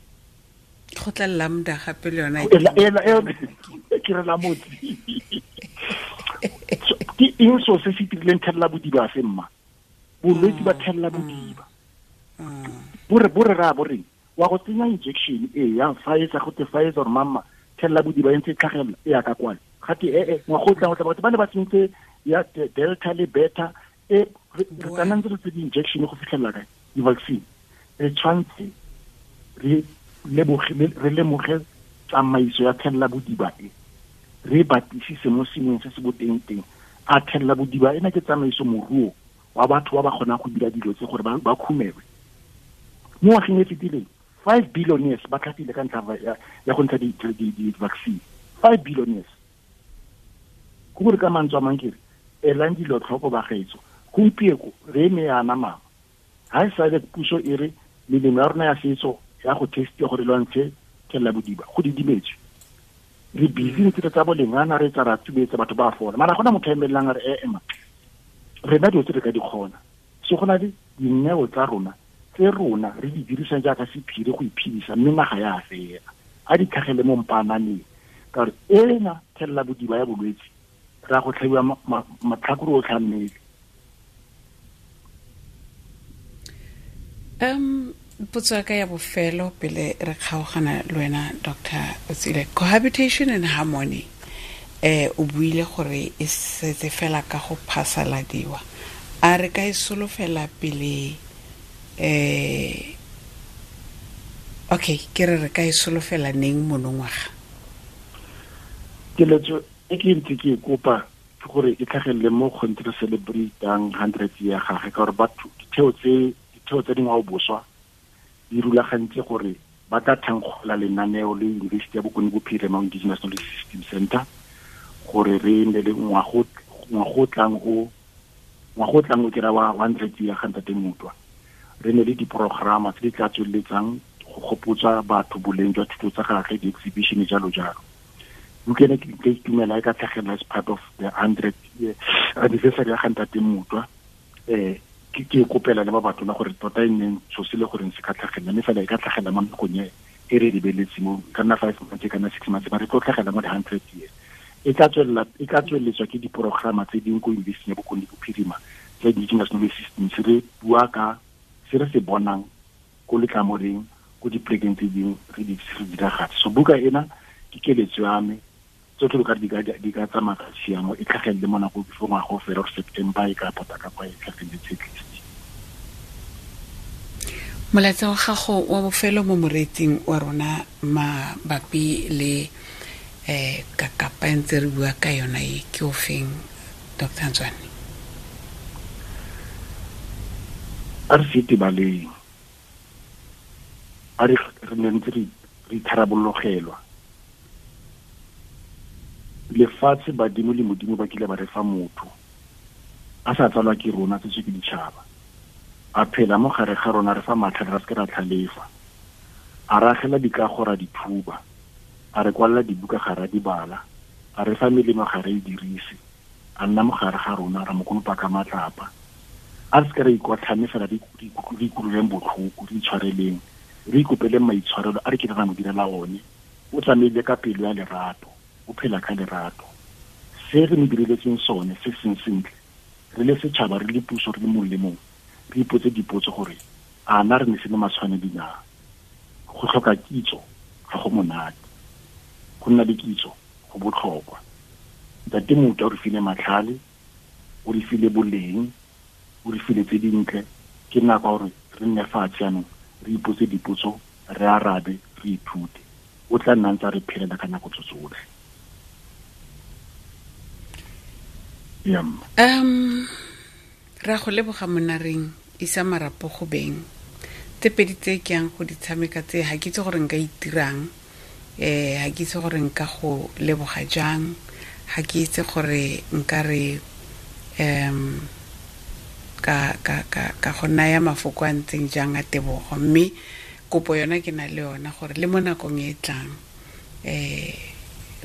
go tla lambda gape le yona ke re la motse ke eng so se se dirileng thella bodiba se mma bolwetse ba thella bodiba bo re ra bo reng wa go tsenya injection e ya Pfizer go te Pfizer or mama thella bodiba e ntse tlhagelela e ya ka kwana gate ngwaga o tlang batho ba ne ba tsentse ya delta le beta e re kana ntse re tse di-injection go fitlhelela kae di-vaccine re tshwanetse re lemoge tsamaiso ya thella bodiba e re batlisise mo sengweng se se boteng teng a thella bodiba ena ke tsamaiso moruo wa batho ba ba kgonang go dira dilo tse gore ba khumelwe. Mo ngwageng e fetileng 5 billionaires ba tlhapile ka ntlha ya go ntsha di-vaccine 5 billionaires. Go gore ka mantswe a mang ke re elang dilo tlhoko bagaetso gompieko re eme yana mama ga e sale puso e re melemo ya rona ya setso ya go testiwa gore lwantshe thella bodiba go didimetswe re busy ntse re tsa bolengana re tsa ra tsubetsa batho ba fola mara gona motho a emelelang a re ema rena dilo tse re ka di kgona so go na le dineo tsa rona tse rona re di dirisang jaaka sephiri go iphedisa mme naga ya fela a di tlhagele mo mpananeng ka gore ena thella bodiba ya bolwetse ra go tlhabiwa matlhakore otlhe a mmele. Potso ya ka ya bofelo pele re kgaogana le wena Dr. Otsile, cohabitation and harmony o buile gore e setse fela ka go phasaladiwa a re ka e solofela pele okay ke re ka e solofela neng monongwaga? Keletso e ke ntse ke kopa ke gore e tlhagelele mo kgontse re celebratang 100 ya gagwe ka gore batho ditheo tse dingwao boswa di rulagantse gore ba tla thankgola lenaneo le University ya Bokone Bophirima Indigenous Knowledge System Center gore re nne le ngwago tlang o kera wa 100 ya ga Ntate Mutwa re ne le diprograma tse di tla tsweletsang go gopotsa batho boleng jwa thuto tsa gagwe di-exhibition jalo jalo. Bukene ke ka itumela e ka tlhagelela as part of the 100 year anniversary ya ga Ntate Mutwa ke kopela le ba batho la gore tota e nneng so se le goreng se ka tlhagelela mme fela e ka tlhagelela mo nakong e re lebeletse mo ka nna 5 months ka nna 6 months ba re tlo tlhagelela mo di-100 years e tla tsweletswa ke diprograma tse dingwe ko University ya Bokone Bophirima tsa Indigenous Knowledge Systems re bua ka se re se bonang ko letlamoreng ko dipolekeng tse dingwe re di diragatse. So buka ena ke keletso ya me tsotlhe lo ka di ka tsamaya ka tshiamo e tlhagelele mo nako before ngwaga o fela gore September e ka pota ka kwa e tlhageletse at least. Molaetsa wa gago wa bofelo mo moreetsing wa rona mabapi le kakapa e ntse re bua ka yona e ke o feng Dr. Nzwani? A re se tebaleng a re ne ntse re itharabologelwa lefatshe badimo le modimo ba kile ba re fa motho a sa tsalwa ke rona tse ke ditšhaba a phela mo gare ga rona re fa matlhare ra se ke ra tlhalefa a ragela dikago ra dithuba a re kwalela dibuka ga ra di bala a re fa melemo ga re e dirise a nna mo gare ga rona ra mo konopa ka matlapa a re se ke ra ikotlhame fela re ikutlweleng botlhoko re itshwareleng re ikopeleng maitshwarelo a re kile ra mo direla one o tsamaile ka pelo ya lerato o phela ka lerato se re mo direletseng sone se seng sentle re le setšhaba re le puso re le mongwe le mongwe re ipotse dipotso gore a na re ne se le matshwanedi na go tlhoka kitso Ga go monate. Go nna le kitso go botlhokwa. Ntate Mutwa o re file matlhale, o re file boleng, o re file tse dintle. Ke nako ya gore re nne fatshe jaanong, re ipotse dipotso, re arabe, re ithute. O tla nna ntse a re phelela ka nako tso tsotlhe. Ra go leboga monareng, isa marapo go beng. Tse pedi tse ke yang go di tshameka tse, ha ke itse gore nka itirang, ha ke itse gore nka go leboga jang, ha ke itse gore nka re, ka go naya mafoko a ntseng jang a tebogo. Mme kopo yona ke na le yona gore le mo nakong e tlang,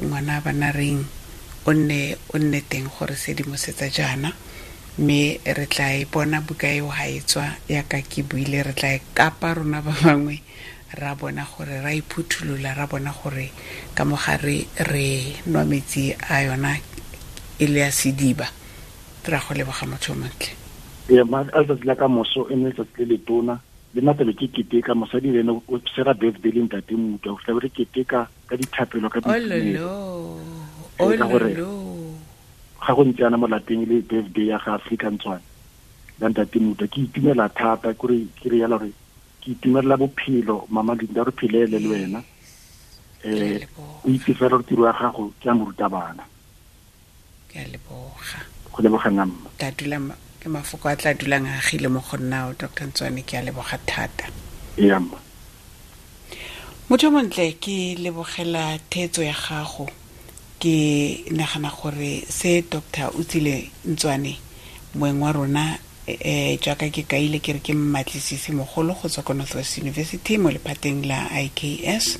ngwana bana reng o nne teng gore sedimosetsa jaana, mme re tla e bona buka eo ha e tswa yaka ke buile, re tla e kapa rona ba bangwe, ra bona gore ra iphutholola, ra bona gore ka mogare re nwa metsi a yona e le ya sediba. Ra go leboga motho o montle. Ee, a letsatsi la ka moso e ne letsatsi le letona, le nna tlabe ke keteka, mosadi le ene o sera birthday le ntate Mutwa, go tlabe re keteka ka dithapelo, ka boitumelo. Ololo, Ee, ka gore ololo. ga go ntse yana mo lapeng le birthday ya ga Afrika Ntswane la ntate Mutwa, ke itumela thata, ke re yala gore ke itumelela bophelo, mama Linda, re phelele le wena. O itse fela gore tiro ya gago ke ya morutabana. Ke a leboga. Go leboga nna, mma. Tla dula ke mafoko a tla dulang a agile mo go nna, Doctor Ntswane, ke a leboga thata. Ee, mma. Motho montle, ke lebogela theetso ya gago. Ke nagana gore se Doctor Otsile Ntswane, moeng wa rona, jaaka ke kaile ke re ke mmatlisisi mogolo go tswa ko North West University mo lephateng la IKS,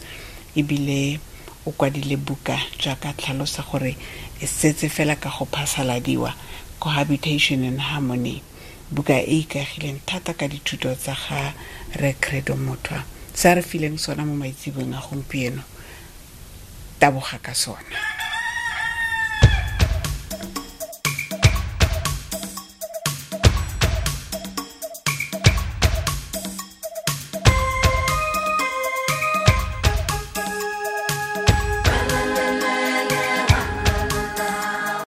ebile o kwadile buka jaaka tlhalosa gore e setse fela ka go phasaladiwa, Cohabitation in Harmony, buka e ikaegileng thata ka dithuto tsa ga Rre Credo Mutwa. Se a re fileng sona mo maitseboeng a gompieno, taboga ka sona.